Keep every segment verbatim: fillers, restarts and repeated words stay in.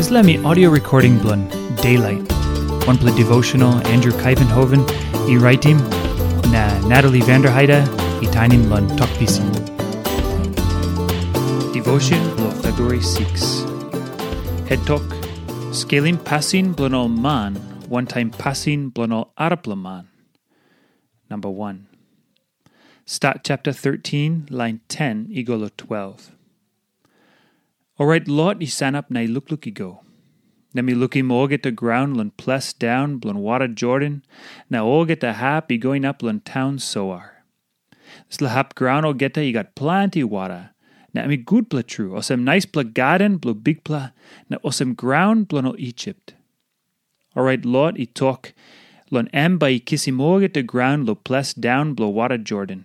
Dispela mi audio recording bilong Daylight, wanpela devotional Andrew Kaivenhoven i raitim, na Natalie Vanderheide i tainim long Tok Pisin. Devotion bilong February six. Het tok, skelim pasin bilong ol man wantaim pasin bilong ol arapela man. Number one. Stat chapter thirteen, line ten i go long twelve. Orait Lot i sanap na i lukluk i go. Na mi lukim olgeta graun long ples daun bilong wara Jordan, na olgeta hap i go inap long taun Soar. Dispela hap graun olgeta i gat planti wara, na em i gutpela tru, olsem naispela gaden bilong Bikpela, na olsem graun bilong ol Isip. Orait Lot i tok long em bai i kisim olgeta graun long ples daun bilong wara Jordan.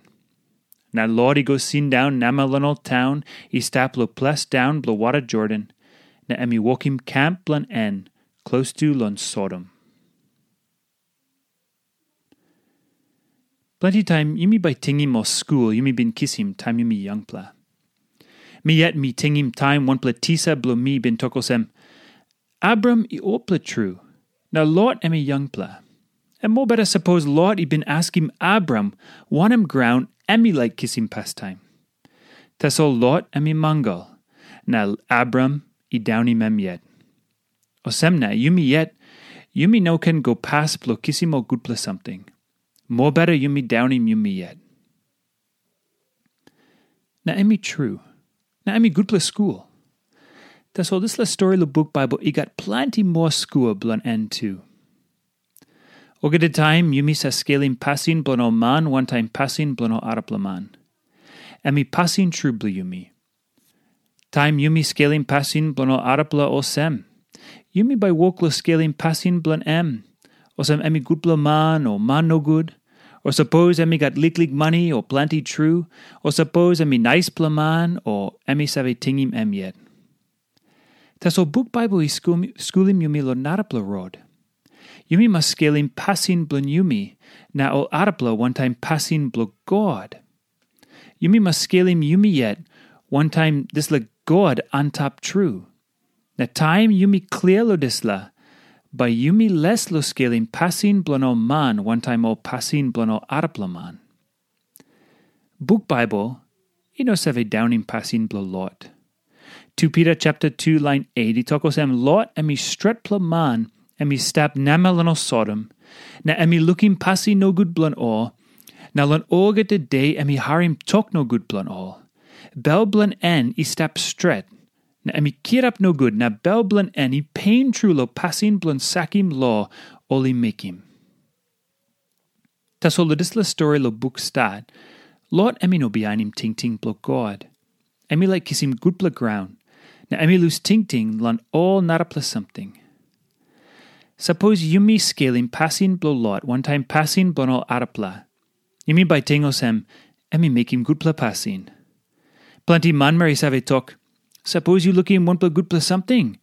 Na Lot i go sindaun namel long ol taun i stap long ples daun bilong wara Jordan, na em i wokim kemp bilong en klostu long Sodom. Planti taim yumi bai tingim ol skul yumi bin kisim taim yumi yangpela. Mi yet mi tingim taim wanpela tisa bilong mi bin tok olsem, Abram i olpela tru, na Lot em i yangpela. Em mobeta sapos Lot i bin askim Abram wanem graun em i laik kisim pastaim. Tasol Lot em i mangal, na Abram i daunim em yet. Olsem na yumi yet, yumi no ken go pas bilong kisim ol gutpela samting. Mobeta yumi daunim yumi yet. Na em i tru. Na em i gutpela skul. Tasol dispela stori long buk Baibel i gat planti moa skul bilong en tu. Olgeta taim yumi sa skelim pasin bilong ol man wantaim pasin bilong ol arapela man. Em i pasin tru bilong yumi. Taim yumi skelim pasin bilong ol arapela olsem, yumi bai wok long skelim pasin bilong em, olsem em i gutpela man o man nogut, o sapos em i gat liklik mani o planti tru, o sapos em i naispela man o em i save tingim em yet. Tasol buk Baibel i skulim yumi long narapela rot. Yumi mas skelim pasin bilong yumi na ol arapela wantaim pasin bilong God. Yumi mas skelim yumi yet wantaim dispela God antap tru. Na taim yumi klia long dispela, bai yumi les long skelim pasin bilong ol man wantaim ol pasin bilong ol arapela man. Buk Baibel i no save daunim pasin bilong Lot. Tu Pita chapter two lain eight i tok olsem Lot em i stretpela man em i stap namel long Sodom, na em i lukim pasin nogut bilong ol, na long olgeta de em i harim tok nogut bilong ol. Bel bilong en i stap stret, na em i kirap nogut na bel bilong en i pen tru long pasin bilong sakim lo ol i mekim. Tasol long dispela stori long buk Stat, Lot em i no bihainim tingting bilong God. Em i laik kisim gutpela graun, na em i lus tingting long ol narapela samting. Sapos yumi skelim pasin bilong Lot wantaim pasin bilong ol arapela, yumi bai ting olsem, em i mekim gutpela pasin. Planti manmeri save tok, sapos yu lukim wanpela gutpela samting,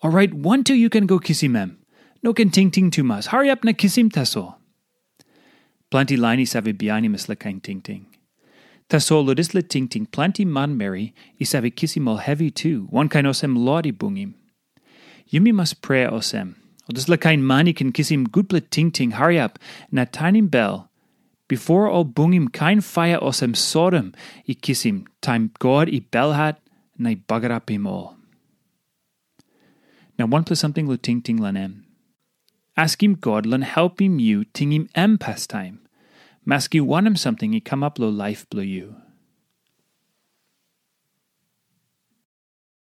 orait wantu yu ken go kisim em. No ken tingting tumas, hariap na kisim tasol. Planti lain i save bihainim dispela kain tingting. Tasol long dispela tingting planti manmeri i save kisim ol hevi tu, wankain olsem Lot i bungim. Yumi mas prea olsem, ol dispela kain man i ken kisim gutpela tingting hariap na tanim bel, bipo ol bungim kain paia olsem Sodom i kisim taim God i belhat na i bagarapim ol. Na wanpela samting long tingting long em. Askim God long helpim yu tingim em pastaim, maski wanem samting i kamap long laip bilong yu.